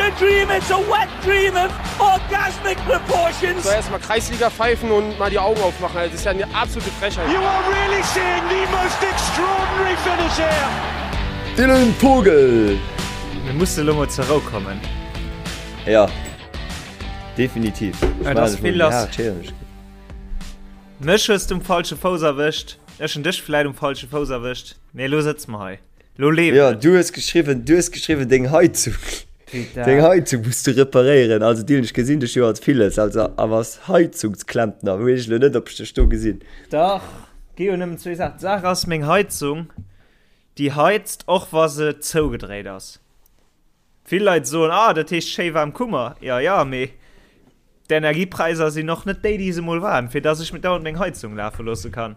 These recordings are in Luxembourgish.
a dream, it's a wet dream of orgasmic proportions. So erstmal Kreisliga pfeifen und mal die Augen aufmachen. Das ist ja eine absolute Frechheit. You are really seeing the most extraordinary finish here. Dylan Vogel. Mir musse lo mol zur Rou kommen. Ja, definitiv. Ja, das ist viel los. Mech hues du um falsche Fouss erwëscht. Ech hunn dech vläit um falsche Fouss erwëscht. Mee elo sëtze mer hei. Lo leeft Ja, et. du hues geschriwwen, du hues geschriwwen, deng Heizung, Putain. deng Heizung muss du reparéieren. Also Dylan, ech gesinn dech jo als villes, also awer als Heizungsklempner weess ech elo net, ob ech dech do gesinn. Dach, gi jo nëmmen zwee Saachen. D'Saach ass, meng Heizung, déi heizt, och wa se zougedréit ass. Vill Leit soen, ah, dat heescht schéi waarm Kummer. Jo, jo, mee d'Energiepräisser sinn och net déi, déi se mol waren, fir dass ech mir dauernd meng Heizung lafe loosse kann.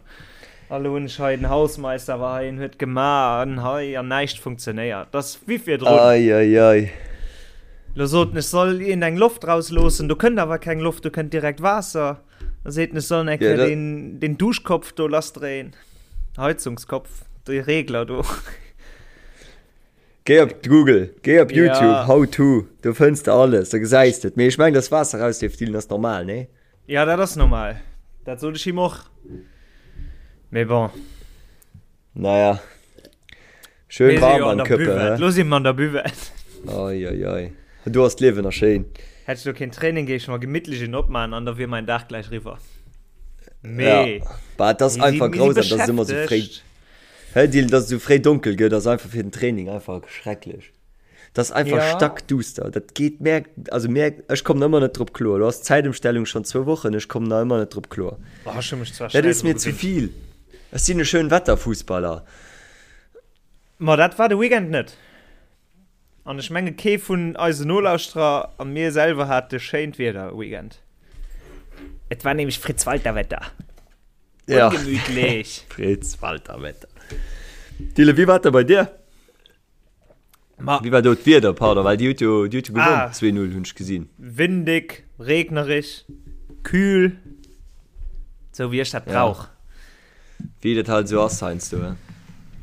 A lo hunn ech hei, den Hausmeister war hei, en huet gemaach an hei an näischt funktionéiert. Dat ass wéi virdrun. Ei, ei, ei. Lo sot en, ech soll iergend eng Loft rausloossen, do kënnt awer keng Loft, do kënnt direkt Waasser. Da seet en, ech soll eng Kéier deen, deen Duschkopf do lassdréien, Heizungskopf, dee Regler do. Géi op Google, géi op YouTube, Ja. how to, do fënns de alles, da gesäis de et. Mee ech mengen, dass Waasser rausleeft, Dylan, ass normal, nee? Ja, dat ass normal. Dat sot ech him och. Mee bon. Naja. Schön Mir si warm jo an am der Köppe, Buvette. hä? Lo si mer an der Buvette. Oi, oi, oi. Do ass d'Liewen nach schéin. Hätt ech lo keen Training, géif ech mer gemittlech een opman an da wier mäin Dag gläich riwwer. Mee. Ja. Bah, et ass Mir si, einfach mir si grausam, dass et ëmmer sou fréi. beschäftegt. Hä Dylan, dass et esou fréi donkel gëtt ass einfach fir den Training einfach schrecklech. Dat ass einfach Ja. stackduster. Dat geet mär, also mär, ech kommen ëmmer net drop kloer. Lo ass d'Zäitëmstellung schonn zwou Wochen, ech kommen nach ëmmer net drop kloer. Oh, ech hu mech zwar Dat schnell ass dru mir ze gewinnt. vill. Ech sinn e Schönwetterfussballer. Ma dat war de Weekend net. An ech menge kee vun eisen Nolauschterer a mir selwer hate schéint Wieder Weekend. Et war nämlech Fritz-Walter-Wetter. Ja. Ungemütlech. Fritz-Walter-Wetter. Dylan, wéi war et da bei dir? Ma Wéi war do d'Wieder, pardon, well dir hutt jo, dir hutt jo gewonnen, Ah. 2-0 hunn ech gesinn. Windig, regnerich, kühl. Sou wéi ech dat Ja. brauch. Wéi dat halt esou ass heiansdo, he?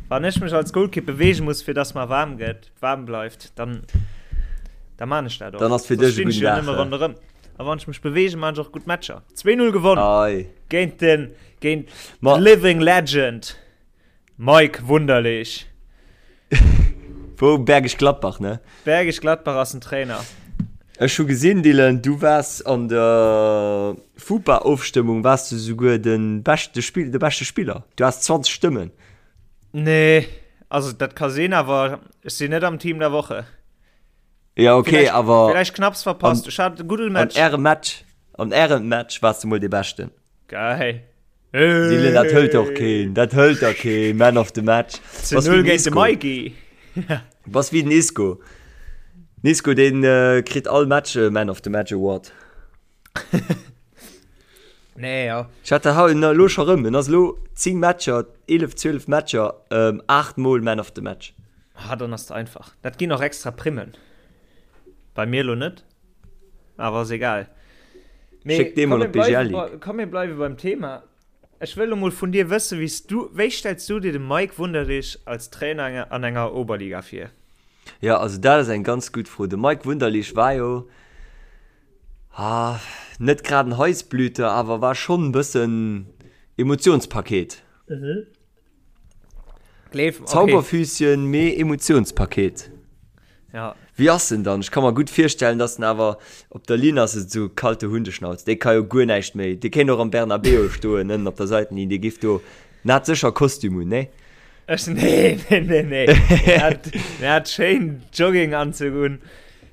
Wann ech mech als Golkipp beweege muss, fir dass mer waarm gëtt, waarm bleift, dann, da man ech dat och. Dann ass fir Soss dech e stinn ech gudden jo Dag, nëmme he? ronderëm. A wann ech mech beweegen, man ech och gutt Matcher. 2-0 gewonnen Ei. géint den, géint Ma. the living legend Mike Wunderlich. Wou Bergisch Gladbach, ne? Bergisch Gladbach ass den Trainer. Ech hu gesinn, Dylan, du waars an der FUPA-Ofstëmmung waars du souguer de beschte Spill, de beschte Spiller. Du has 20 Stëmmen. Nee, also dat ka sinn, awer ech sinn net am Team der Woche. Ja, okay, Vielleicht, awer vielleicht knapps verpasst. An, Ech hat e gudde an Match. ärem Match, an ärem Match waars du mol dee Beschten. Geil. Dylan, dat hëlt och keen, dat hëlt der keen, Man of the Match. Zu Bass 0 wéi den géint de Isco. Mikey. Bass wéi den Isco. Den Isco, deen kritt all Match e Man of the Match Award. Nee, ja. Ech hat dat haut elo scho rëm. En ass elo 10 Matcher, 11, 12 Matcher, 8 mol Man of the Match. Ah, dann ass et einfach. Dat ginn och extra Primmen. Bei mir elo net, awer ass egal. Mee Schéck dee komm, mol mir op d'BGL bleiwe Ligue. bei, komm, mir bleiwe beim Thema. Ech wëll elo mol vun dir wëssen, wéi s du, wéi stells du dir de Mike Wunderlich als Trainer an enger Oberliga vir? Jo, also dat ass eng ganz gutt Fro. De Mike Wunderlich war jo, ah, net grad en Heißblüter, awer war schonn e bëssen Emotionspaket. Gleef, okay. Zauberfüßchen, mee Emotionspaket. Ja. Wéi ass en dann? Ech ka mer gutt virstellen, dass en awer op der Linn ass, esou kalte Hundeschnauz. Dee ka jo guer näischt méi. Dee kéint och am Bernabeu stoen, ënnen op der Seitenlinn. Dee giff do, en hat sécher Kostüm un, nee? Ech, nee, nee, nee, nee. Deen hat, deen hat schéin Jogginganzug un,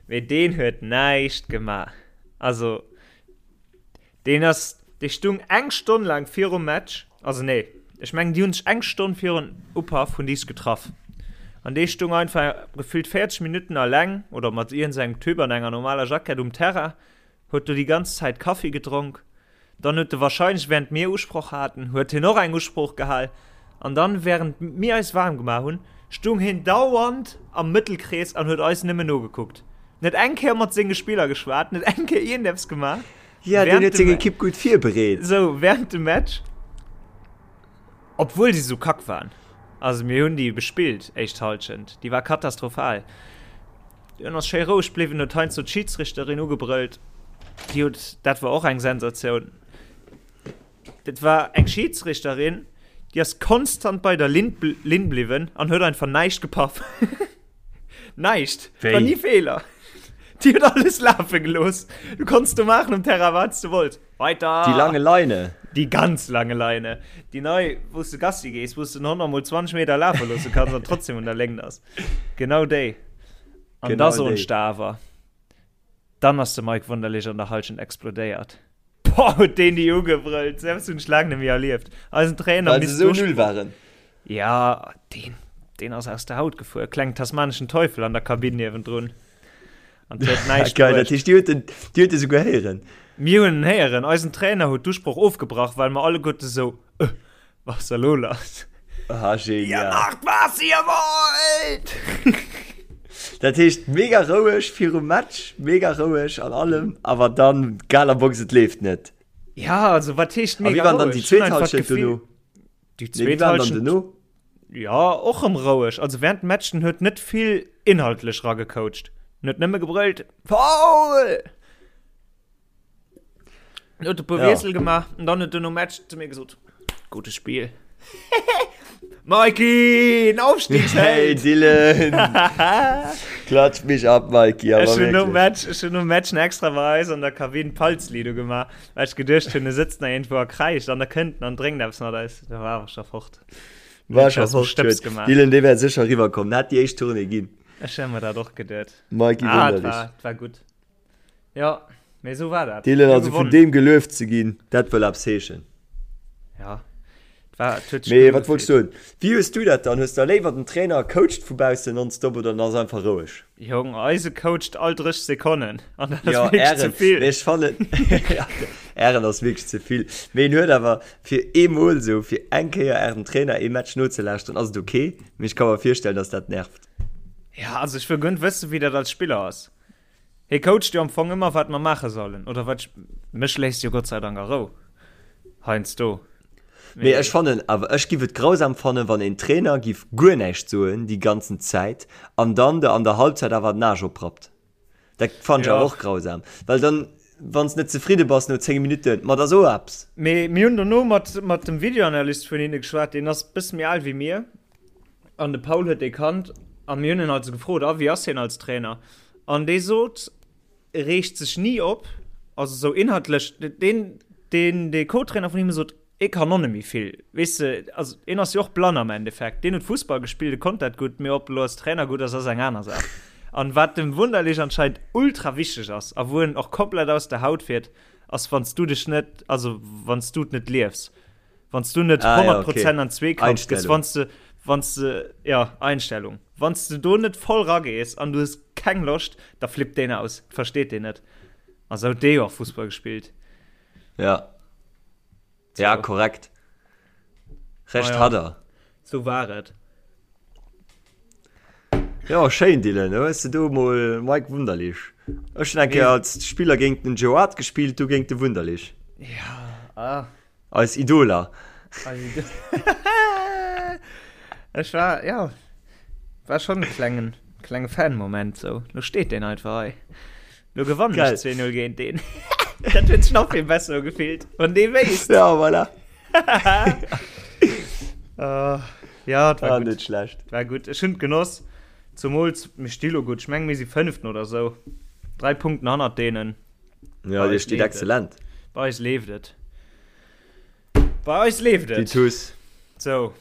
mee deen huet näischt gemaach. Also, Deen ass, dee stung eng Stonn laang virum Match, also nee, ech mengen déi hunn sech eng Stonn virun Upaff hunn déi sech getraff an dee stung einfach gefüllt 40 Minutten alleng oder mat iergendsengem Typ an enger normaler Jackett um Terrain, huet do déi ganz Zäit Kaffi gedronk, dann huet e wahrscheinlech während mir Usproch haten, huet hien och eng Usprooch gehal an dann während mir eis waarm gemaach hunn, stung hien dauernd am Mëttelkrees an huet eis nëmmen nogekuckt. Net eng Kéier mat senge Spiller geschwat, net eng Kéier iergendeppes gemaach. Ja, deen huet seng Ekipp gutt virbereet. Sou, während dem Match, obwuel si sou kack waren, also mir hunn déi bespillt, éischt Halschent, déi war katastrophal. En ass schéi roueg bliwwen, huet heiansdo d'Schidsrichterin ugebrëllt. Déi huet, dat war och eng Sensatioun, dat war eng Schidsrichterin, déi ass konstant bei der Linn, Linn bliwwen an huet einfach näischt gepaff. Näischt! Et war ni Feeler. Déi huet alles lafe gelooss. Du konns do maachen um Terrain, wat s du wollts. Weiter! Die lange Leine. Die ganz lange Leine. Déi nei, wou s du Gassi gees, wou s du den Hond nach mol 20 Meter lafe loosse kanns an trotzdem un der Léngt ass. Genau déi. An Genau da soen déi. ech der awer, dann ass de Mike Wunderlich an der Halschent explodéiert. Boah, huet deen déi ugebrëllt. Selbst hunn ech laang net méi erlieft. Eisen Trainer Well se misst esou do null waren. Ja, deen, deen ass aus der Haut gefuer. Klengen tasmaneschen Teufel an der Kabinn niewendrun. An huet näischt Geil, dat bruecht. heescht, dir huet en, dir huet e souguer héieren. Mir hunn en héieren. Eisen Trainer huet d'Usproch ofgebrach, well mer alleguerte sou, Äh, was ass da lo lass? Ah, genial. Ihr macht, was ihr wollt! Dat heescht, mega roueg virum Match, mega roueg an allem, awer dann Galabox, et leeft net. Ja, also wat heescht A wéi mega waren dann roueg? déi Ech hunn zweet einfach Halschent d'Gefill, dono? Déi Nee, wéi zweet waren dann Halschent, dono? ja, och rëm roueg. Also während dem Match, den huet net vill inhaltlech ragecoacht. Den huet nëmme gebrëllt, Foul! Den huet e puer Ja. Wiessel gemaach an dann huet en nom Match zu mir gesot, Gutes Spiel. Mikey, en Hey Aufstiegsheld! Dylan! Klatsch mich ab, Mikey, awer Ech hunn nom wierklech. Match, ech hunn nom Match nach extra bei eis an der Kabinn Palzlido gemaach, well ech geduecht hunn, e sëtzt nach iergendwou a kräischt an da kënnt en an drénkt eppes mat eis. Da war awer scho fort. War Huet scho aus dem fort, Stëbs huet. gemaach. Dylan, dee wär sécher eriwwer komm. En hätt déi éischt Tournée ginn. Ech hu mer dat och geduet. Mikey Ah, et Wunderlich. war, et war gutt. Ja, mee esou war dat. Dylan, Mir also vun gewonnen. deem gelueft ze ginn, dat wëll eppes heeschen. Ja, et war, et huet sech Mee gutt wat wollts ugefillt. du soen? Wéi hues du dat dann? Hues der léiwer den Trainer coacht vu baussen nonstop oder en ass einfach roueg? Jong, eise coacht all 30 Sekonnen an dat ass Jo, wierklech ze Ären, vill. mee ech fannen, ja, Ären ass wierklech ze vill. Mee en huet awer fir eemol esou, fir eng Kéier Ärem Trainer ee Match nozelauschteren, ass et ok. Mee ech ka mer virstellen, dass dat nervt. Ja, also ech wëll guer net wëssen, wéi dat als Spiller ass. Hie coacht jo am Fong ëmmer wat mer maache sollen, oder wat ech, mech léisst jo Gott sei Dank a Rou heiansdo. Mee ech fannen awer, ech giff et grausam fannen, wann een Trainer giff guer näischt soen déi ganzen Zäit an dann der an der Halbzeit awer den Aarsch oprappt. Dat fannen ech awer och grausam, well dann, wann s net zefridde bass no 10 Minutten, ma da so eppes. Mee mir hunn dono mat mat dem Videoanalyst vun hinne geschwat, deen ass bësse méi al wéi mir, An de Paul huet dee kannt a mir hunn en also gefrot, a wéi ass hien als Trainer? An dee sot, e reegt sech ni op, also sou inhaltlech, deen, deen, dee Co-Trainer vun him sot, e kann och net méi vill, weess de, also en ass jo och blann am Endeffekt, deen huet Fussball gespillt, e konnt dat gutt, mee ob e lo als Trainer gutt ass, ass eng aner Saach. An wat dem Wunderlich anscheinend ultra wichteg ass a wou en och komplett aus der Haut fiert, ass wann s du dech net, also wann s du et net liefs. Wann du net ah, 100 ja, okay. Prozent an Zweekampf gehst, wann du, wann du, ja, Einstellung. Wann du do net voll ragees an du hues keng Loscht, da flippt deen aus, versteet deen net. Also huet dee jo och Fussball gespillt. Ja. So. Ja, korrekt. Recht ah, ja. hat er. So war et. Ja, schéin Dylan, da hues de do mol Mike Wunderlich. Ech hunn eng Kéier als Spiller géint den Joe Hart gespillt, du géint de Wunderlich. Ja, ah. Eis Idoler. Eis Idoler. Ech war, ja, war schon e klengen, klenge Fan-Moment sou. Lo steet deen einfach hei. Lo gewannen ech 2-0 géint deen. Dat huet sech nach vill besser ugefillt, wann dee wéisst. Ja, voilà. uh, ja, war ah, gut. Net schlecht. War gut. Ech hunn genoss. Zumools, mir sti lo gutt. Ech meng, mir si Fënneften oder sou. Dräi Punkten hannert deenen. Ja, dir steet exzellent. Bei eis leeft et. Bei eis leeft et. Déi Tuss. So.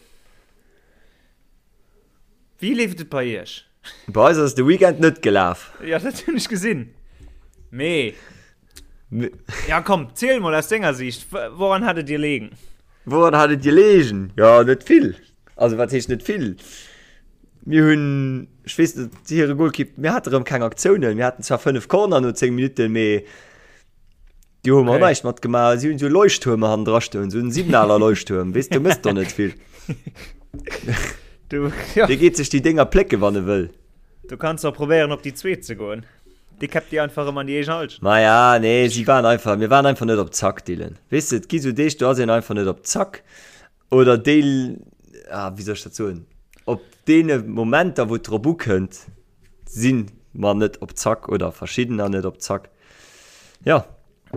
Wéi leeft et bei iech? Bei eis ass de Weekend net gelaf. Ja, dat hunn ech gesinn. Mee. Ja, komm, ziel mol aus denger Sicht. Woran hat et dir leegen? Woran hat et dir leegen? Ja, net vill. Also, wat heescht net vill? Mir hunn, ech weess net, hire Golkipp, mir hate rëm keng Aktiounen. Mir haten zwar 5 Corner no 10 Minutten, mee déi hu mer Okay. näischt matgemaach. Si hunn esou Leuchttuerme hannendra stoen, esou en Signaler Leuchttuerm, weess, do mëss der net vill. Du, ja. Dee geet sech déi Dénger plécke wann e wëll. Du kanns och probéieren op déi zweet ze goen. Déi käppt dir einfach ëm an déi eegen Halschent. Maja, nee, si waren einfach, mir waren einfach net op Zack, Dylan. Weess de, et gi sou Deeg, do ass een einfach net op Zack. Oder déi, ah, wéi soll ech dat soen, op deene Momenter, wou et drop ukënnt, si. mer net op Zack oder verschiddener net op Zack. Ja.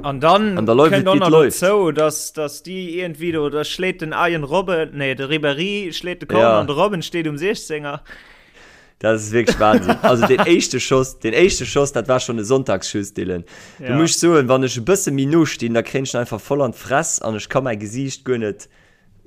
An dann an da läuft et, wéi et läuft. Dozou, dass, dass déi iergendwéi do, da schléit den Arjen Robben, nee, de Ribéry schléit de Corner ja. an de Robben steet um 16er. Dat ass wierklech Wahnsinn. Also den éischte Schoss, den éischte Schoss, dat war schon e Sonntagsschuss, Dylan. Ja. Du muss soen, wann ech e bësse méi no stinn, da kréien ech einfach voll an d'Fress an ech ka mäi Gesiicht guer net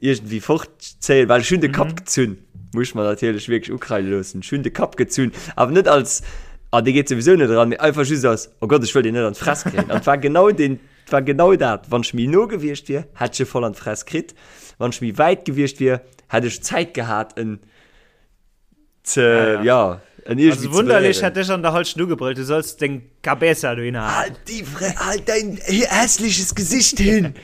iergendwéi fortzéien, well ech hunn de Kapp mhm. gezunn. Muss mer natierlech wierklech ukreide loossen. Ech hunn de Kapp gezunn, awer net als ah, dee geet souwisou net eran, mee einfach just als oh Gott, ech wëll deen net an d'Fress kréien. An et war genau den, et war genau dat. Wann ech méi no gewiescht wier, hätt ech e voll an d'Fress kritt. Wann ech méi wäit gewiescht wier, hätt ech Zäit gehat, en ze, ja, ja. ja en irgendwie also wunderlich hätt dech an der Halschent ugebrüllt, du sollst deng Cabeza do hinhalen. Halt die Fre halt dein hässliches Gesicht hin!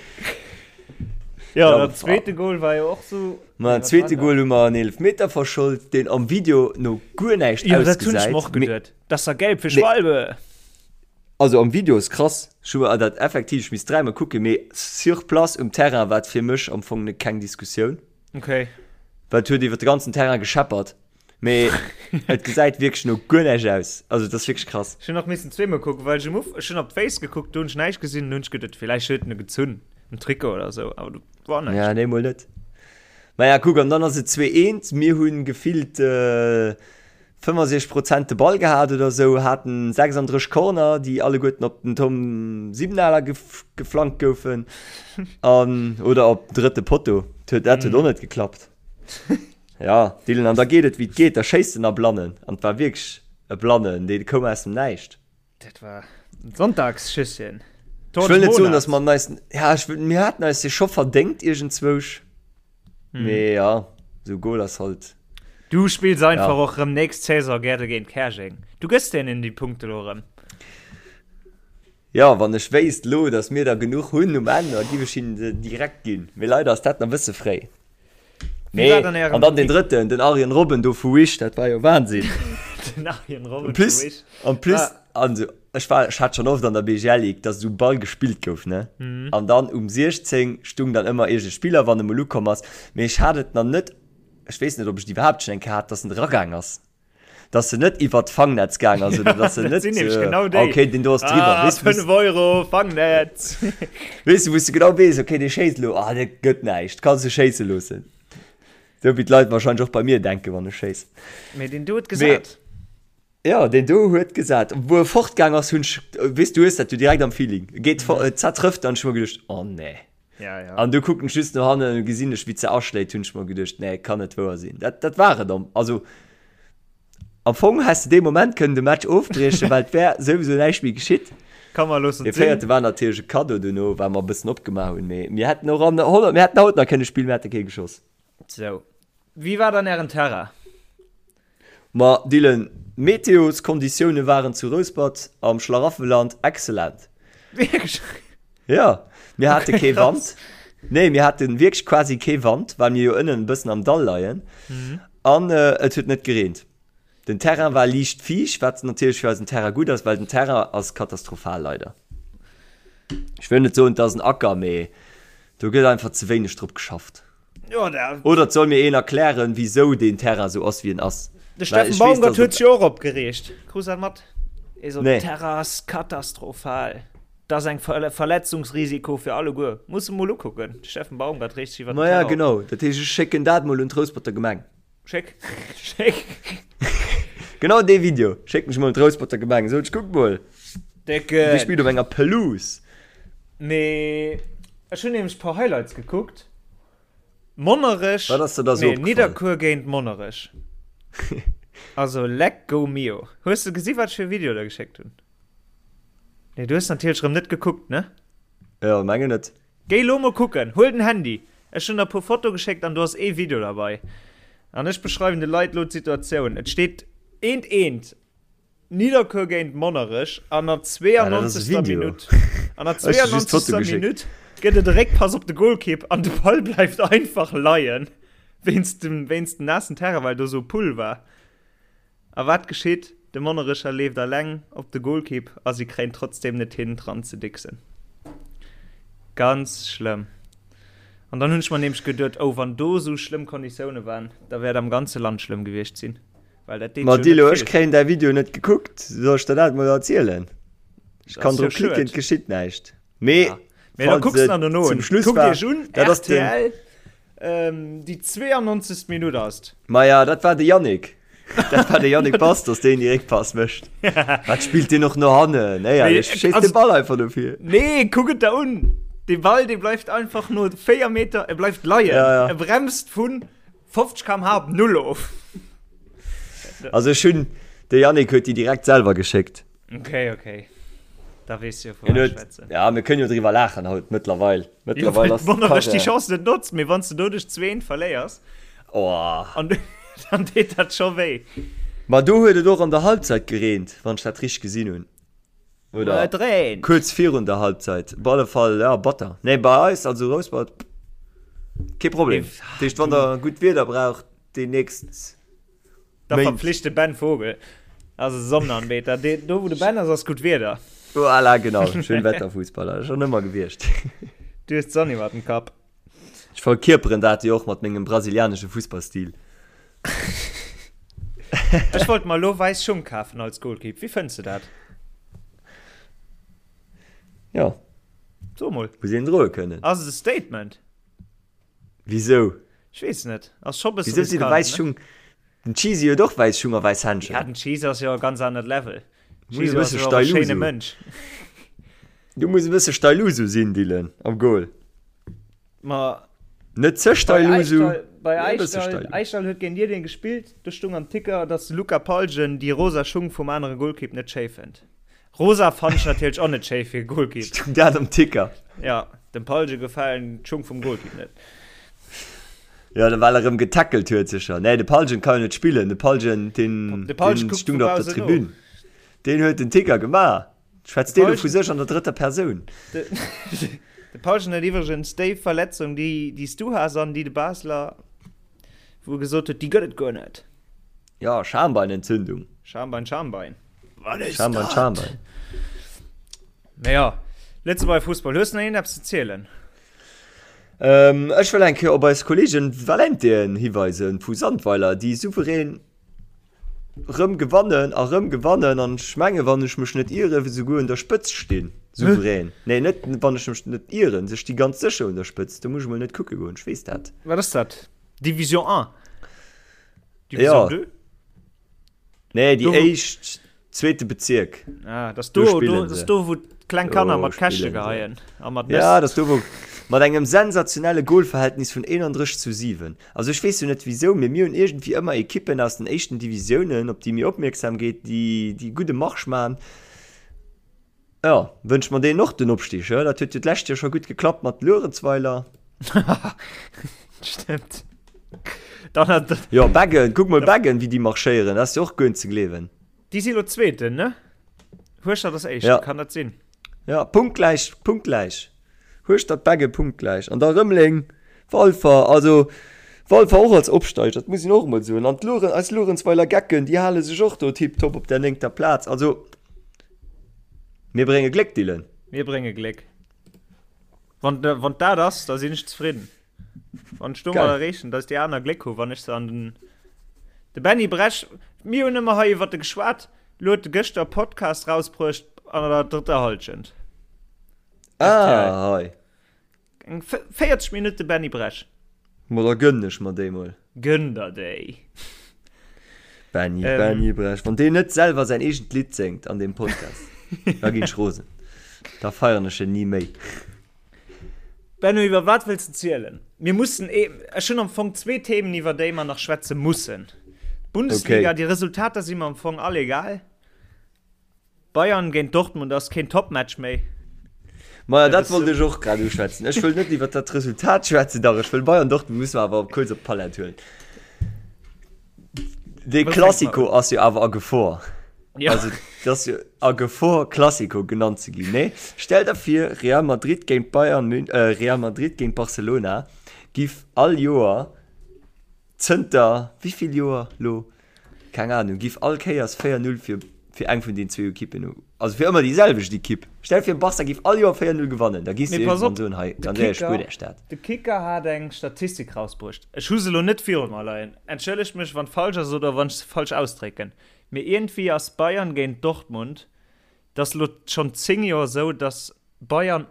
Ja, ja den zweete Goal war jo och so. Ma den zweete Goal hu mer en Eelefmeter verschold, deen am Video no guer näischt ja, dat hunn ech mer och geduet. Dat ass da gelb fir Schwalbe. Also am Video ass krass, ech hu mer dat effektiv, ech misst dräimol kucken, mee sur place um Terrain war et fir mech am Fong keng Diskussioun. Okay. Well et huet iwwer de ganzen Terrain gescheppert. Mee et gesäit wierklech no guer näischt aus. Also et ass wierklech krass. Ech hunn och missen zweemol kucken, well ech um Uf ech hunn op d'Féiss gekuckt, do hunn ech näischt gesinn, dunn hunn ech geduet, villäicht huet en e gezunn um Trikot oder sou, awer do war näischt. Ja, nee, mol net. Maja, kuck, an dann ass et 2, 1. Mir hunn gefillt 65 Prozent de Ball gehat oder sou, haten 36 Corner, déi alleguerten op den Tom Siebenaler geflankt goufen an oder op den drëtte Potto. Dat huet och net geklappt. Ja, Dylan, an da geet et wéi et geet, da schéisst en a Blannen an et war wierklech e Blannen, dee koum aus dem Näischt. Dat war en Sonntagsschüsschen. Ech wëll net soen, dass mer eis, ja, ech wëll, mir haten eis dee scho verdéngt iergendzwousch, hm. mee ja, esou Goal ass halt. Du spills einfach ja. och rëm nächst Saison gäre géint Käerjeng. Du gëss deenen déi Punkte lo rëm. Ja, wann ech wéisst lo, dass mir der genuch hunn um Enn, da giff ech hinnen se direkt ginn. Mee leider ass dat nach e bësse fréi. Nee, an dann den drëtten, den Arjen Robben do vu Wish, dat war jo Wahnsinn. Den Arjen Robben plus, vu Wish. En plus, ah. also, ech war, ech hat schon oft an der BGL Ligue, dass esou Ball gespillt gouf, ne? Mhm. An dann um 16 stung dann ëmmer iergend e Spiller, wann e mol ukomm ass. Mee ech hat et nach net, ech weess net, ob ech et iwwerhaapt schon eng Kéier hat, dass en eragaang ass. Dass se net iwwert d'Fangnetz gaang ass oder dass se net sinn genau déi. Okay, den do ass driwwer. Ah, 5 Euro Fangnetz. Weess du, wou s du genau weess, okay, dee schéisst elo, ah, dat gëtt näischt, kanns du schéisse loossen. Sou wéi d'Leit wahrscheinlech och bei mir denken, wann ech schéissen. Mee deen do huet gesat. Jo, deen do huet gesat. Wou e fortgaang ass, hunn ech, weess du, hues dat jo direkt am Feeling, e geet fort, et zertrëfft, an ech hu mer geduecht, oh nee. Ja, ja. An du kucken ech just no hannen an gesinn ech, wéi se aschléit, hunn ech mer geduecht, nee, kann net wouer sinn. Dat, dat war et am, also am Fong häss de dee Moment kënnen de Match ofbriechen, well et wär souwisou näischt méi geschitt. Komm mer loossen et sinn. Dee véierte war natierlech e Cadeau duerno, well mer e bëssen opgemaach hunn, mee mir hätten och an 100, mir hätten haut nach kënne spillen, mir hätte kee geschoss. Sou, wéi war dann ären Terrain? Ma Dylan, d'Meteoskonditioune waren zu Rouspert am Schlaraffenland excellent. Wierklech? Jo, mir hate kee Wand. Nee, mir hate wierklech quasi kee Wand, well mir jo ënnen e bëssen am Dall leien. An et huet net gereent. Den Terrain war liicht fiicht, wat natierlech fir eisen Terrain gutt ass, well den Terrain ass katastrophal leider. Ech wëll net soen, et ass en Acker, mee do gëtt einfach ze wéineg drop geschafft. Ja, der Oder et soll mir een erklären, wisou deen Terrain sou ass, wéi en ass. De Steffen Baumgart huet sech jo och opgereegt. Krus dat mat? Hie sot, Nee. Terrain ass katastrophal. Dat ass eng Ver Verletzungsrisiko fir alleguer. Muss e mol ukucken. De Steffen Baumgart reegt sech iwwer den Maja, Terrain op. genau. Dat heescht, ech schécken dat mol un d'Rousperter Gemeng. Schéck. Schéck. Genau dee Video schécken ech mol un d'Rousperter Gemeng. Sot ech, kuck mol, Dir Décken. spillt op enger Pelouse. Mee ech hunn nämlech e puer Highlights gekuckt. Monnerech, Wat ass der da sou nee, opgefall? Nidderkuer géint Monnerech. Also leck go mio. Hues de gesi wat ech fir e Video der geschéckt hunn? Nee, du hues natierlech rëm net gekuckt, ne? Jo, mengen net. Géi lo mol kucken, huel den Handy. Ech hunn der e puer Foto geschéckt an do ass ee Video derbei. An ech beschreiwen de Leit lo d'Situatioun. Et steet eent eent. Nidderkuer géint Monnerech an der 92. Minutt an der 92. Minutt gëtt et e Réckpass op de Golkipp an de Ball bleift einfach leien wéinst dem wéinst dem naassen Terrain, well do sou Pull war. A wat geschitt? De Monnerecher leeft alleng op de Golkipp a si kréien trotzdeem net hin dran ze dicksen. Ganz schlëmm. An dann hunn ech mer nämlech geduet, oh wann do sou schlëmm Konditioune waren, da wäert am ganze Land schlëmm gewiescht sinn. Well dat deet Ma jo net Dilo, ech vill. kréien däi Video net gekuckt. Soll ech der dat mol erzielen? Ech Dat kann ass jo drop klicken, schued. et geschitt näischt. Mee Ja. Mee da falls kucks et der dono zum un. Schluss Kuckt war, iech un, dat ass den. RTL, ähm, déi 92. Minutt ass et. Maja, dat war de Yannick. Dat war de Yannick Bastos, deen déi Réckpass mécht. Wat spillt deen och no hannen? Mee, Éierlech, schéisst also, de Ball einfach no vir. Nee, kuck et der un. Dee Ball, dee bleift einfach no 4 Meter, e bleift leien. Ja, ja. E bremst vun 50 km/h op null of. Also ech hunn, de Yannick huet déi direkt selwer geschéckt. Okay, okay. Da weess du jo, vu Hien wat ech huet, schwätzen. ja, mir kënnen jo driwwer laachen haut mëttlerweil. Jo, Mëttlerweil well ass wonnert ech déi d'Karriär. Chance net notzt, mee wann s de doduerch 2-1 verléiers, Oh. an dann deet dat scho wéi. Ma do huet et och an der Halbzeit gereent, wann ech dat richteg gesinn hunn. Oder Et reent. kuerz virun der Halbzeit. Op alle Fall, ja, batter. Nee, bei eis, also Rouspert, kee Problem. Mee, Dat heescht, wann der gutt Wieder braucht, déi nächst Da Méint. verpflicht de Ben Vogel. Also Sonnenanbeter. De, do wou de Ben ass, ass gutt Wieder. Voilà, genau. Schönwetterfußballer. Schon ëmmer gewiescht. Du hues d'Sonn iwwer dem Kapp. Ech verkierperen dat jo och mat mengem brasilianesche Fussballstil. Ech wollt mer elo wäiss Schung kafen als Goalkeep. Wéi fënns de dat? Jo. So mol. Muss een droe kënnen. Ass et e Statement? Wisou? Ech weess net. Ass scho bësse Wisou si de riskant, wäiss ne? Schung? Den Cheesy huet och wäiss Schung a wäiss Händschen. Ja, den Cheesy ass jo e ganz anert Level. Muss e Cheesy ass bësse jo och e schéine Steilusu. Mënsch. Du muss e bësse Steilusu sinn, Dylan, am Goal. Ma Net ze bei Steilusu, Aischdall, bei mee e bësse Aischdall, Steilu. Aischdall huet géint Diddeleng gespillt, do stung am Ticker, dass de Luca Palgen déi rosa Schung vum anere Golkipp net schéi fënnt. Rosa fannen ech natierlech och net schéi fir e Golkipp. Stung dat am Ticker? Ja, dem Palge gefalen d'Schung vum Golkipp net. Ja, well er erëm getackelt huet sécher. Nee, de Palgen kann jo net spillen. De Palgen, deen, De Palgen deen kuckt stung vu do op der bausen no. Tribün. Deen huet den Ticker gemaach. Schwätzt De dee lo vu Palgen, sech an der drëtter Persoun? de, de Palgen huet iwwregens déi Verletzung, déi, déi s du has an déi de Basler, wou e gesot huet, déi gëtt et guer net. Ja, Schambeinentzündung. Schambein, Schambein. Wat is Schambein, dat? Schambein. Mee ja, Lëtzebuerger Fussball, hues du nach iergendeppes ze zielen? Ähm, ech wëll eng Kéier op eis Kollegen Valentien hiweisen vu Sandweiler, déi souverän rëm gewannen a rëm gewannen an ech menge wann ech mech net ieren, esouguer un der Spëtzt stinn. Souverän. Nee, net wann ech mech net ieren, se sti ganz sécher un der Spëtzt. Do muss ech mol net kucke goen, ech weess dat. Wat ass dat? Division 1? Division Ja. 2? Nee, déi Do, wou- éischt, zweete Bezierk. Ah, das Do do, do, spillen das se. do wou d'kleng Kanner Do mat Käschte spillen se. geheien a mat Nëss. Ja, das do wou mat engem sensationelle Golverhältnis vun 31 zu 7. Also ech weess jo net wisou, mee mir hunn iergendwéi ëmmer Ekippen aus den éischten Divisiounen, op déi mir opmierksam geet, déi déi gudde Marsch man. Jo, wënsche mer deenen och den Opstig, he? Dat huet jo d'lescht Joer scho gutt geklappt mat Luerenzweiler. Stimmt. Dann hat Jo, Beggen, kuck mol Beggen, wéi déi marschéieren, dat ass jo och guer net ze gleewen. Déi si lo Zweeten, ne? Hueschtert ass Éischten, Ja. kann dat sinn? Ja, punktgläich, punktgläich. Hueschtert, Beggen punktgläich. An da Rëmeleng, Walfer, also Walfer och als Opsteiger, dat muss een och emol soen. An d'Lueren, eis Luerenzweiler Gecken, déi hale sech och do tiptop op der néngter Plaz. Also, Mir brénge Gléck, Dylan. Mir brénge Gléck. Wann, wann dat ass, da sinn ech zefridden. Wann ech domat erreechen, dass déi aner Gléck hu wann ech se an den. De Benny Bresch, mir hunn ëmmer hei iwwer de geschwat, lo huet e gëschter e Podcast rausbruecht an der drëtter Hallschent. Ah, hei. Eng 40 Minutte Benny Bresch. Ma da gënnen ech mer déi mol. Gënn der déi. Benny, ähm, Benny Bresch. Wann deen net selwer säin eegent Lidd séngt an deem Podcast, da ginn ech rosen. Da feieren ech en ni méi. Benno, iwwer wat wëlls de zielen? Mir mussen, eh, ech hunn am Fong zwee Themen, iwwer déi mer nach schwätze mussen. Bundesliga, okay. Déi Resultater si mer am Fong all egal. Bayern géint Dortmund ass keen Topmatch méi. Maja, dat wollt ech och grad uschwätzen. Ech wëll net iwwer dat Resultat schwätzen, dach ech wëll Bayern Dortmund musse mer awer kuerz op d'Palett huelen. Dee Classico ass jo awer a Gefor. Ja. Also dat ass jo a Gefor Classico genannt ze ginn, nee? Stell der vir Real Madrid géint Bayern Mün äh, Real Madrid géint Barcelona giff all Joer Zënter wéivill Joer lo? Keng Ahnung, giff all Kéiers 4, 0 fir. Fir eng vun den zwou Ekippen, also fir ëmmer déi selwecht Ekipp. Stell dir vir, Barca géif all Joer 4-0 gewannen, da giss de iergendwann soen, hei, ganz éierlech, spuert Iech dat. De Kicker hat eng Statistik rausbruecht, ech hu se elo net viru mer leien, entschëllegt mech wann falsch ass oder wann ech se falsch ausdrécken, mee iergendwéi ass Bayern géint Dortmund, dat ass elo schonn 10 Joer esou, datt Bayern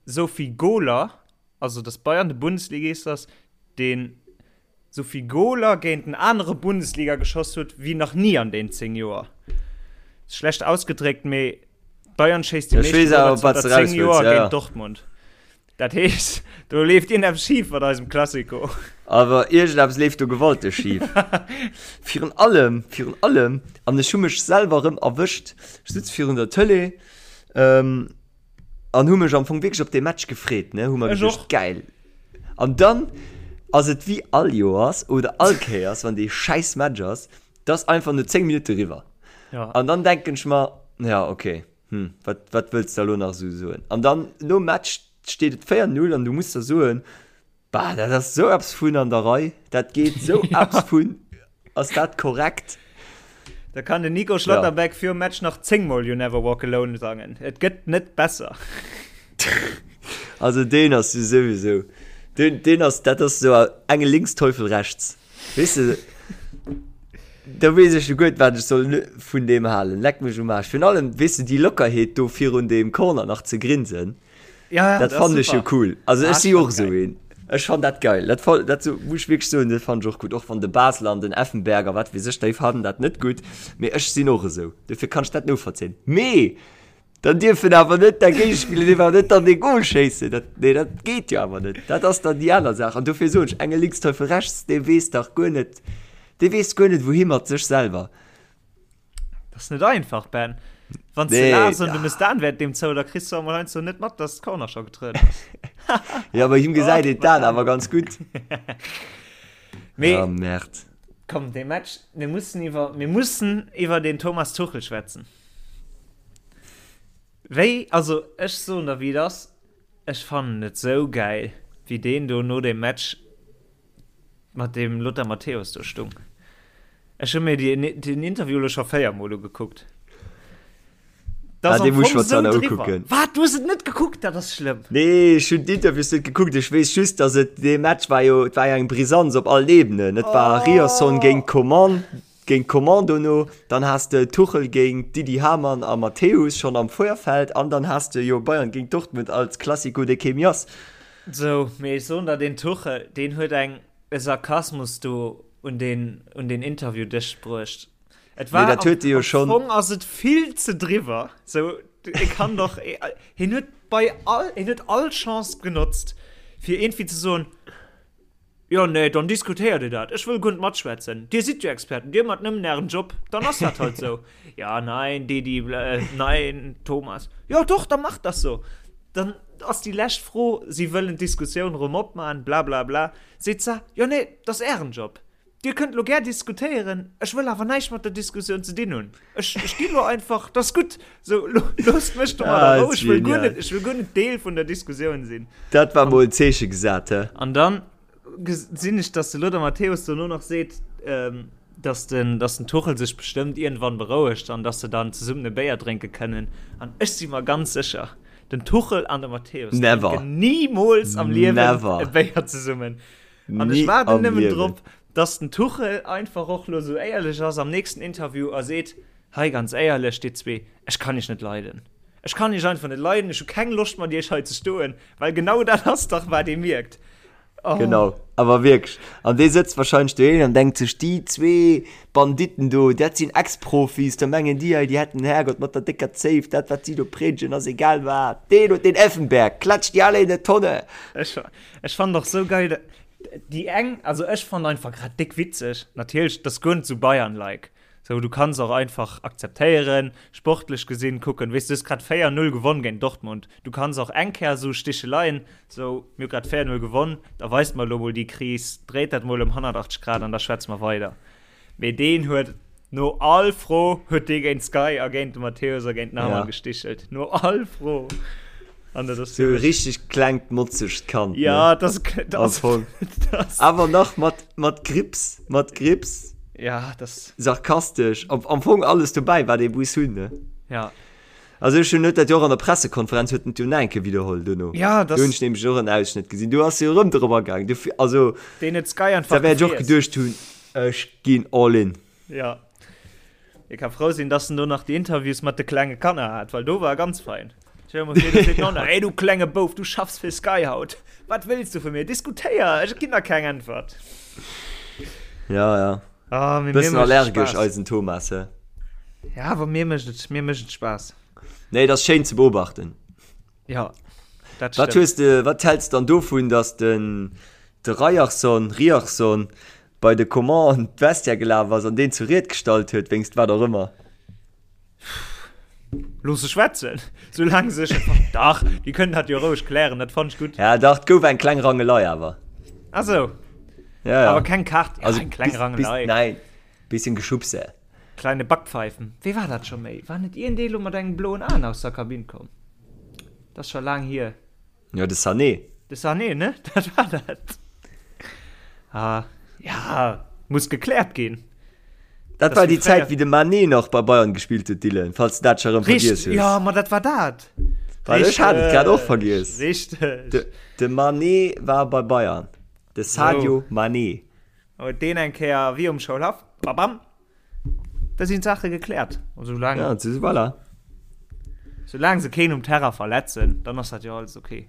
esou vill Goler, also datt Bayern de Bundesligist ass, deen sou vill Goler géint en anere Bundesliga geschoss huet wéi nach ni an den 10 Joer. Schlecht ausgedréckt, mee Bayern schéisst déi meeschte Goler zanter 10 Joer géint Dortmund. Dat heescht, do leeft iergendeppes schif mat eisem Classico. Awer iergendeppes leeft do gewalteg schif. Virun allem, virun allem, an ech hu mech selwer erëm erwëscht, ech sutz virun der Tëlee, An hu mech am Fong wierklech op dee Match gefreet, ne, hu mer geduecht, geil. An dann ass et wéi all Joers oder all Kéiers, wann dee schäiss Match ass, dass einfach no 10 Minutte riwwer. Ja. An dann denken ech mer, ja, okay, hm, wat, wat wëlls de elo nach esou soen? An dann nom Match steet et 4-0 an du muss der soen, Bah, dat ass sou eppes vun an der Rei. Dat geet sou eppes vun. Ass dat korrekt? Da kann den Nico Schlotterbeck ja. virum Match nach 10 Mol You Never Walk Alone sangen. Et gëtt net besser. Also deen ass jo sowieso. Den, den ass, dat ass so enge links, Teufel rechts. Weess de, da weess ech jo guer net, wat ech soll vun deem halen. Leck mech um Aarsch. Virun allem, weess de, déi Lockerheet do virun deem Corner nach ze grinsen. Ja, dat fand ech jo cool. Also ech si och esou een. Ech fand dat geil. Dat, dat so, muss ech wierklech soen, dat fand ech och gutt. Och wann de Basler an den Effenberg a wat weess ech, déi fannen dat net gutt. Mee ech sinn och esou. Dofir kann ech dat novollzéien. Mee dann dierf en awer net der Géigespiller dierf awer net dann dee Goal schéissen. Dat, nee, dat geet jo awer net. Dat ass dann déi aner Saach. An dofir soen ech, Engel links, Teufel rechts, dee weess dach guer net, dee weess guer net, wouhi mat sech selwer. Das ist net einfach, Ben. Wann nee, du laachs und du misst dann während dem zou, da kriegst du einmal so net mat, dass Corner schon getrëtt ass. ja, bei him gesäit een d'Aen awer ganz gutt. Mee, oh, Merd. Komm, de Match, mir mussen iwwer, mir mussen iwwer den Thomas Tuchel schwätzen. Wéi, also ech soen der wéi et ass, ech fannen et sou gäil, wéi deen do no dem Match mat dem Lothar Matthäus do stung. Ech hu mir déi, den Interview lo scho 4 mol ugekuckt. Das ah, den muss ich mir zwar nach ukucken. Wat, du hues et net gekuckt? Dat ass schlëmm. Nee, ech hunn d'Interviews net gekuckt. Ech weess just, dass et dee Match war jo, et war jo eng Brisanz op allen Ebenen. Et war oh. Ryerson géint Coman, géint Coman dono, dann has de Tuchel géint Didi Hamann a Matthäus schonn am Vorfeld an dann has de jo Bayern géint Dortmund als Classico de Chemias. Sou, mee ech soen der, deen Tuchel, deen huet eng e Sarkasmus do un deen, un deen Interviewdësch bruecht. Et war, Mee dat huet e jo schonn. Am Fong ass et vill ze driwwer. Sou, e kann doch, hien huet bei all, hien huet all Chance genotzt, fir iergendwéi ze soen, Jo, nee, dann diskutéiert Dir dat. Ech wëll guer net matschwätzen. Dir sidd jo Experten, Dir mat nëmmen Ären Job, dann ass dat halt sou. Ja, nein, Didi, nein, Thomas. Jo, doch, da macht das so. Dann ass déi lescht Fro, si wëllen d'Diskussioun erëm opmachen, bla bla bla. Seet se, Jo, nee, dat ass Ären Job. Dir kënnt elo gär diskutéieren, ech wëll awer näischt mat der Diskussioun ze dinn hunn. Ech, ech ginn elo einfach, dat ass gutt. Sou, loosst mech do mat a Rou, ech wëll guer net, ech wëll guer net Deel vun der Diskussioun sinn. Dat war mol en Zeeche gesat, he? An dann gesinn ech, dass de Lothar Matthäus dono nach seet, dass den, dass den Tuchel sech bestëmmt iergendwann berouegt an dass se dann zesummen e Béier drénke kënnen. An ech si mer ganz sécher, den Tuchel an de Matthäus drénken nimools am Liewen e Béier zesummen. An ech waarden nëmmen drop, dass den Tuchel einfach och lo sou éierlech ass am nächsten Interview a seet, Hei ganz éierlech, dir zwee, ech kann iech net leiden. Ech kann iech einfach net leiden, ech hu keng Loscht mat iech hei ze stoen, well genau dat ass dach wat ee mierkt. Oh. Genau, awer wierklech. An dee sëtzt wahrscheinlech doheem an denkt sech, déi zwee Banditten do, dat sinn Ex-Profis, da mengen déi hei, déi hätten den Herrgott mat der décker Zéif, dat wat si do priedegen ass egal wat. Deen huet den Effenberg, klatscht déi alle in der Tonne. Ech, ech fannen och sou geil, déi eng, also ech fannen einfach grad déck witzeg, natierlech, dat ass guer net sou Bayern-like. Sou, du kanns och einfach akzeptéieren, sportlech gesinn kucken, weess du hues grad 4, 0 gewonn géint Dortmund, du kanns och eng Kéier sou Sticheleien, sou mir hu grad 4, 0 gewonn, da weist mer elo mol déi Kris, dréit dat mol ëm 180 Grad an da schwätze mer weider. Mee deen huet no all Fro huet dee géint Sky a géint de Matthäus a géint den Hamann gestichelt, no all Fro. An dat ass Sou e richteg klengt motzegt Kand, ne? Ja, dat ass, dat ass, Am Fong. Awer nach mat, mat Grips, mat Grips. Ja, das. Sarkastesch, am, am Fong alles dobäi, wat ee muss hunn, ne? Ja. Also ech hunn huet dat jo och an der Pressekonferenz huet en et jo nach eng Kéier widderholl dono. Ja, das. Do hunn ech nämlech och en Ausschnëtt gesinn. Do ass jo erëm drop agaang. Du, also. Deen huet Sky einfach Da wäert ech och geduecht hunn, ech ginn all in. Ja. Hie ka frou sinn, dass en do nach déi Interviews mat de klenge Kanner hat, well do war e ganz fein. Stell dir mol vir, do seet d'Nonna, Hey du klenge Bouf, du schaffs fir Sky haut. Wat wëlls du vu mir? Diskutéier, ech ginn der keng Äntwert. Ja, ja. Ah, mee mir Bëssen mécht et allergesch, Spaass. eisen Thomas, hä? Ja, awer mir mécht et, mir mécht et Spaass. Nee, et ass schéin ze beobachten. Ja, dat Wat hues de, wat häls dann dovun, dass den de Ryerson, Ryerson bei de Coman an d'Vestiaire gelaf ass an deen zur Ried gestallt huet, wéinst wat och ëmmer? Looss se schwätzen, soulaang se sech. Dach, déi kënnen dat jo roueg klären, dat fannt ech gutt. Ja, dach, et gouf eng kleng Rangelei awer. Ah sou. Ja, ja. Awer keng Kaart, ja, Also, eng kleng bis, Rangelei. bis, nein, bisschen Geschubse. Kleine Backpfeifen. Wéi war dat scho méi? War net iergendee lo mat engem bloen Aen aus der Kabinn komm? Dat ass scho laang hier. Jo, de Sané. De Sané, ne? Dat war dat. Ah, ja, muss gekläert ginn. Dat war déi Zäit, wéi de Mané nach bei Bayern gespillt huet, Dylan, falls de dat scho erëm vergiess hues. Jo, ma dat war dat. Well ech hat et grad och vergiess. Richteg. De, de Mané war bei Bayern. De Sadio Mané. Huet deen eng Kéier wéi um Schoulhaff, babam, da sinn d'Saache gekläert. An soulaang, Ja, c'est voilà. soulaang se keen um Terrain verletzen, dann ass dat jo alles ok.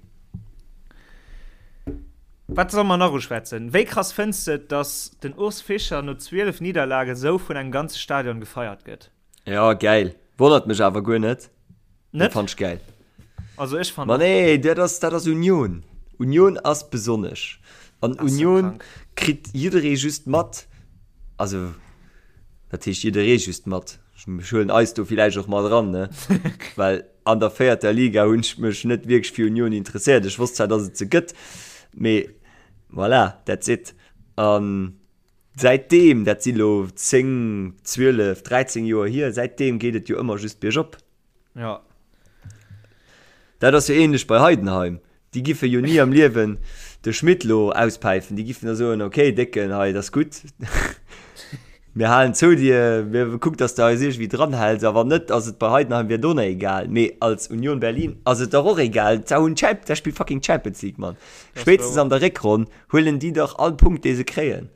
Wat solle mer nach uschwätzen? Wéi krass fënns de et, dass den Urs Fischer no 12 Nidderlage sou vun engem ganze Stadion gefeiert gëtt? Ja, geil. Wonnert mech awer guer net. Net? Fand ech geil. Also ech fand Ma nee, dat ass, dat ass Union. Union ass besonnesch. An Union kritt jidderee just mat, also dat heescht jidderee just mat, ech huelen eis do villäicht och mat eran, ne? Well an der véierter Liga hunn ech mech net wierklech fir Union interesséiert. Ech wosst zwar, datt et se gëtt, mee voilà, that's it. An säitdeem, dat si lo 10, 12, 13 Joer hier, säitdeem geet et jo ëmmer just biergop. Ja. Dat ass jo ähnlech bei Heidenheim. Déi giffe jo ni am Liewen de Schmidt lo auspäifen. Déi giffen da soen, okay Décken, hei, dat ass gutt. Mir halen zou dir, mir kuck, datt s de eis iergendwéi dranhäls. A wann net, ass et bei Heidenheim wier et och nach egal. Mee als Union Berlin ass et dach och egal. D'Sau hunn d'Champ, d'Sau spillt fucking Champions League, Mann. Spéitstens an der Réckronn huelen déi dach all Punkt, dee se kréien.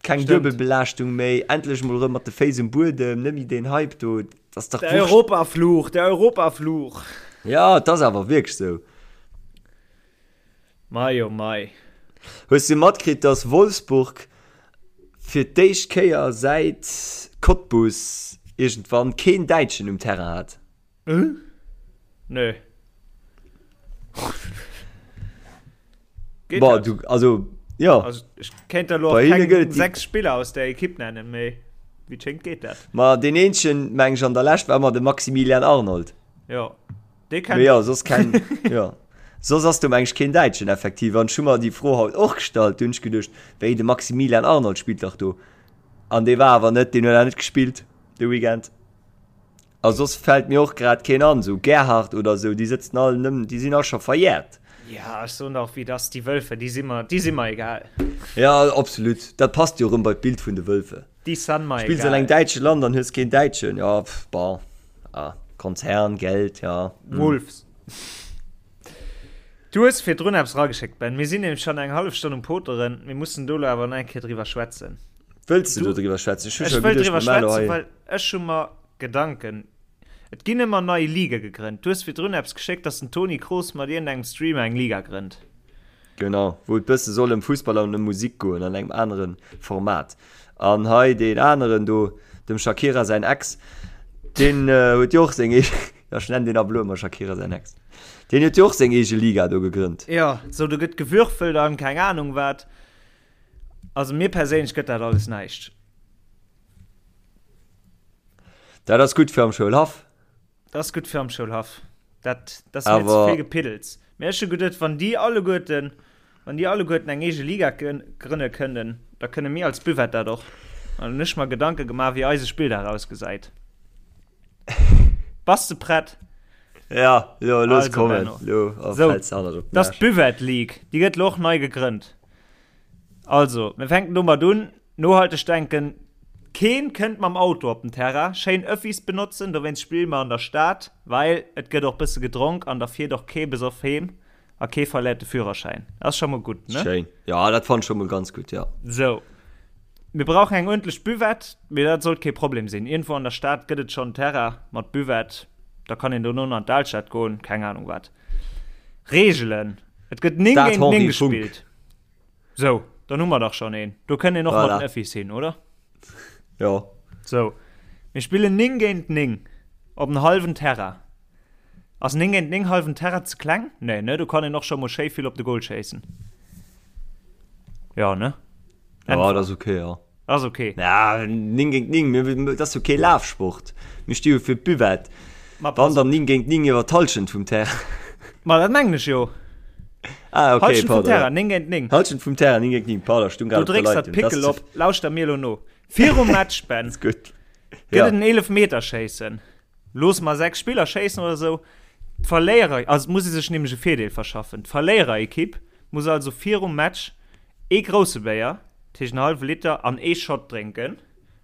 Keng Stimmt. Duebelbelaaschtung méi, endlech mol rëm mat de Féiss um Buedem, net méi deen Hype do, dat ass dach Der wurscht. Europafluch, der Europafluch. Ja, et ass awer wierklech sou. Mei oh mei. Hues du matkritt, dass Wolfsburg fir d'éischt Kéier säit Cottbus iergendwann keen Däitschen um Terrain hat? Äh? Nö. Geht Boah, dat? du, also, ja. Also, ich kéint der lo Bei hinne keng gëtt et déi- sechs Spiller aus der Ekipp nennen, mee wéi et schéngt geet dat. Ma deen eenzegen, meng ech, an der Lescht war ëmmer de Maximilian Arnold. Ja, dee kennt Mee ja, soss keng, ja. Soss ass do meng ech keen Däitschen effektiv. An ech hu mer déi Fro haut och gestallt, du hunn ech geduecht, wéi, de Maximilian Arnold spillt dach do. An dee war awer net, deen huet awer net gespillt de Weekend. A soss fällt mir och grad keen an, sou Gerhard oder sou, déi sëtzen all nëmmen, déi sinn all scho verjährt. Ja, ech soen der och wéi et ass, déi Wölfe, déi si mer, déi si mer egal. Ja, absolut, dat passt jo erëm bei d'Bild vun de Wölfe. Déi san mer egal. Spills an engem däitsche Land an hues keen Däitschen, ja, pff, bon, ah, Konzern, Geld, ja. Wolves. Du hues virdrun eppes erageschéckt, Ben. Mir sinn nämlech schonn eng hallef Stonn um Poteren. Mir mussen do elo awer nach eng Kéier driwwer schwätzen. Wëlls de do driwwer schwätzen? Ech hu Ech scho wëll geduecht, driwwer mir maachen elo schwätzen, hei. well ech hu mer Gedanken. Et ginn ëmmer nei Ligae gegrënnt. Du hues virdrun eppes geschéckt, dass den Toni Kroos mat iergendengem Streamer eng Liga grënnt. Genau, wou et bësse soll ëm Fussball an ëm Musik goen, an engem anere Format. An hei deen aneren do, dem Shakira säin Ex, deen huet jo och seng eege, jo ech nennen deen ab elo ëmmer Shakira säin Ex, deen huet jo och seng eege Liga do gegrënnt. Jo, sou do gëtt gewürfelt an keng Anung wat. Also mir perséinlech gëtt dat alles näischt. Dat ass gutt fir am Schoulhaff. Dat ass gutt fir am Schoulhaff. Dat, dat ass mir ze vill Gepiddels. Mee ech hu geduet, wann déi alleguerten, wann déi alleguerten eng eege Liga grënne kënnen, da kënne mir als Buvette dat och. An hunn ech mer Gedanke gemaach, wéi eise Spilldag ausgesäit. Bass de prett? Ja, lo, looss Also, kommen. Benno. Lo, oh, Sou, fäls de hannert op den dat ass Aarsch. d'Buvette League. Déi gëtt lo och nei gegrënnt. Also, mir fänken domat un, Nohalteg denken. Keen kënnt mam Auto op den Terrain. Schéin Öffis benotzen, dowéinst spille mer an der Stad, well et gëtt och bësse gedronk an da fiert och kee besoff heem a kee verléiert de Führerschäin. Ass scho mol gutt, ne? Schéin. Jo, dat fannen ech scho mol ganz gutt, jo. Sou. Mir brauchen eng uerdentlech Buvette, mee dat sollt kee Problem sinn. Iergendwou an der Stad gëtt et schonn Terrain mat Buvette, da kann een dono an d'Alstad goen, keng Anung wat. Reegelen, Et gëtt 9 Stade géint 9 Henri Funck. gespillt. Sou, dann hu mer dach schonn een. Do kënnt een och mat Voilà. den Öffis hin, oder? Jo. Sou, mir spillen 9 géint 9 op en hallwen Terrain. Ass 9 géint 9 hallwen Terrain ze kleng? Nee, ne? Do kann een och scho mol schéi vill op de Goal schéissen. Jo, ne? Ja, dat ass okay, jo. Ass okay. Ja, 9 géint 9, mir, dat ass jo kee Lafsport. Mir sti jo fir d'Buvette. Ma pass Wann dann 9 géint 9 iwwer d'Hallschent vum Terrain. Ma dat mengen ech jo. Ah, okay, Hallschent vum pardon. Terrain, 9 géint 9. Hallschent vum Terrain, 9 géint 9, pardon, ech stung Du grad op der drécks dat Leitung. Dat Pickel ass op. Lauschter mir elo no. Virum Match, Ben, ze gutt. gëtt Ja. et en Eelefmeterschéissen. Loosse mer 6 Spiller schéissen oder esou. D'Verléierer, also et muss ee sech nämlech e Virdeel verschaffen. D'Verléiererekipp muss also virum Match ee grousse Béier, dat heescht en hallwe Liter, an ee Shot drénken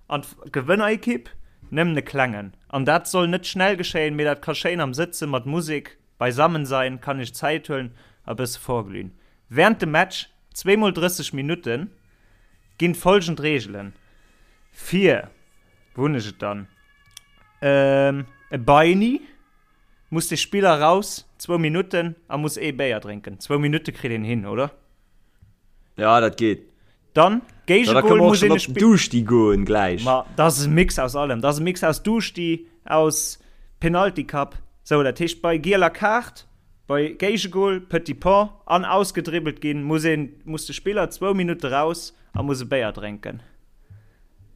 an d'Gewënnerekipp nëmmen e klengen. An dat soll net schnell geschéien, mee dat ka schéin am Sëtze mat Musek beisammen sein, kann ech Zäit huelen a bësse vorglühen. Während dem Match, zweemol 30 Minutten, ginn folgend Reegelen fir, wou hunn ech et dann, e Beini muss de Spiller raus, zwou Minutten, a muss ee Béier drénken. Zwou Minutte kritt een hin, oder? Ja, dat geet. Dann, Ja, da Géigegol kënne mer och muss schon een e op den Spill. Duschti goen gläich. Ma dat ass e Mix aus allem. Dat ass e Mix aus Duschti, aus Penalty Cup. Sou, dat heescht bei gieler Kaart, bei Géigegol, Petit Pont an ausgedribbelt ginn, muss een, muss de Spiller zwou Minutte raus a muss e Béier drénken.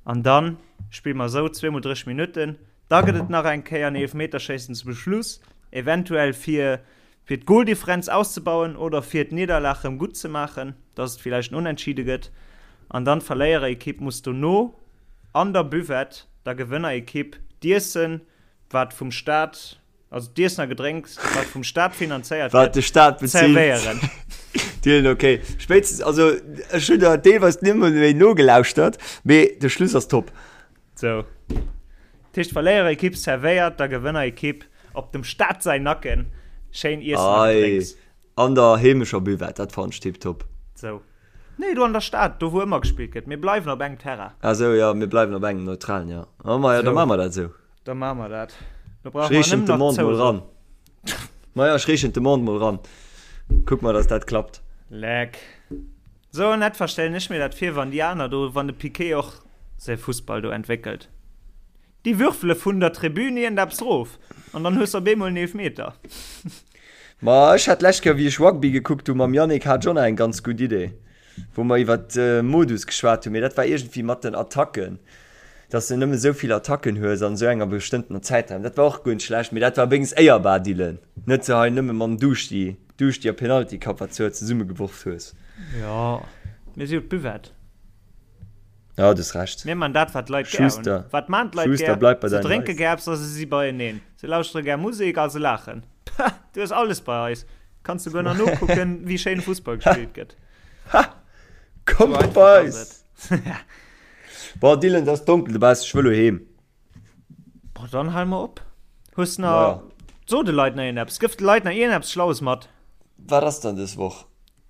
An dann spille mer esou zweemol 30 Minutten. Da gëtt et nach eng Kéier en Eelefmeterschéissen zum Schluss, eventuell fir fir d'Goldifferenz auszebauen oder fir d'Nidderlag rëm gutt ze maachen, dass et villäicht en Unentschiede gëtt. An dann d'Verléiererekipp muss dono an der Buvette der Gewënnerekipp d'Iessen, wat vum Staat, also d'Iessen a Gedrénks, wat vum Staat finanzéiert Wat gëtt, de Staat bezilt. zerwéieren. Dylan, okay. Spéitstens, also ech hunn der deelweis nimmer méi nogelauschtert, mee de Schluss ass top. Sou. Dat heescht, d'Verléierekipp servéiert der Gewënnerekipp op dem Staat säin Nacken schéin Iessen a Ei, Gedrénks. an der heemescher Buvette, dat fannen ech tiptop. Sou. Nee, do an der Stad, do wou ëmmer gespillt gëtt. Mir bleiwen op engem Terrain. Ah sou, jo, mir bleiwen op engem neutralen, jo. Oh maja, da Sou. maache mer dat esou. Da maache mer dat. Do Ech brauche mer reechen nëmmen nach d'Demande mol d'Zouso. ran. Maja, ech reechen d'Demande mol ran. Kuck mer, dass dat klappt. Leck. Sou en etwa stellen ech mir dat vir, wann déi aner do, wann de Piqué och säi Fussball do entwéckelt. Déi würfele vun der Tribün iergendeppes rof an dann hues de op eemol en Eelfmeter. Ma ech hat d'lescht Kéier, wéi ech Rugby gekuckt hu mam Yannick, hat ech och nach eng ganz gutt Idee, wou mer iwwer Modus geschwat hunn, mee dat war iergendwéi mat den Attacken, dass de nëmme sou vill Attacken hues an esou enger bestëmmtener Zäitraum. Dat war och guer net schlecht, mee dat war wéinstens éierbar, Dylan, net sou hei nëmme mam Duschti. Duerch déi Penalty Cup wat s du hei zesummegeworf hues. Jo, mir si jo d'Buvette. Jo, du hues Recht. Mir man dat wat d'Leit gär hunn. Schuster, Wat man d'Leit Schuster, gär? bleib bei Se deinen drénke Leisten. gär eppes a se si beieneen. Se lauschtere gär Musek a se laachen. Pah, du hues alles bei eis. Kanns souguer nach nokucken, wéi schéin Fussball gespillt gëtt. Ha! Kommt Sou einfach bei ass eis! et. Boah, Dylan, et ass donkel dobaussen, ech wëll elo heem. Boah, dann hal mer op. Hues na so de Leit nach iergendeppes? Gëff de Leit nach iergendeppes Schlaues mat. Wat ass dann dës Woch?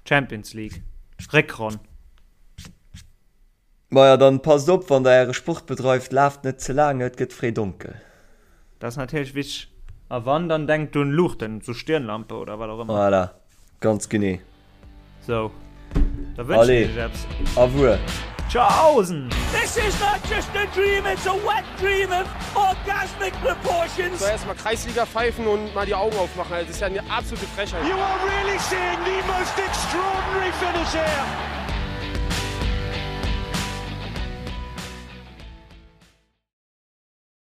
Champions League, Réckronn. Maja, dann passt op, wann der äre Sport bedreift, laaft net ze laang, et gëtt fréi donkel. Dat ass natierlech wichteg. A wann, dann denkt un Luuchten, sou Stirnlampe oder wat och ëmmer. Voilà, ganz genee. Sou, da wënschen Allez, ech iech eppes. Au revoir. Tschaußen! This is not just a dream, it's a wet dream of orgasmic proportions. So erstmal Kreisliga pfeifen und mal die Augen aufmachen. Also, das ist ja eine absolute Frechheit. You are really seeing the most extraordinary finish here.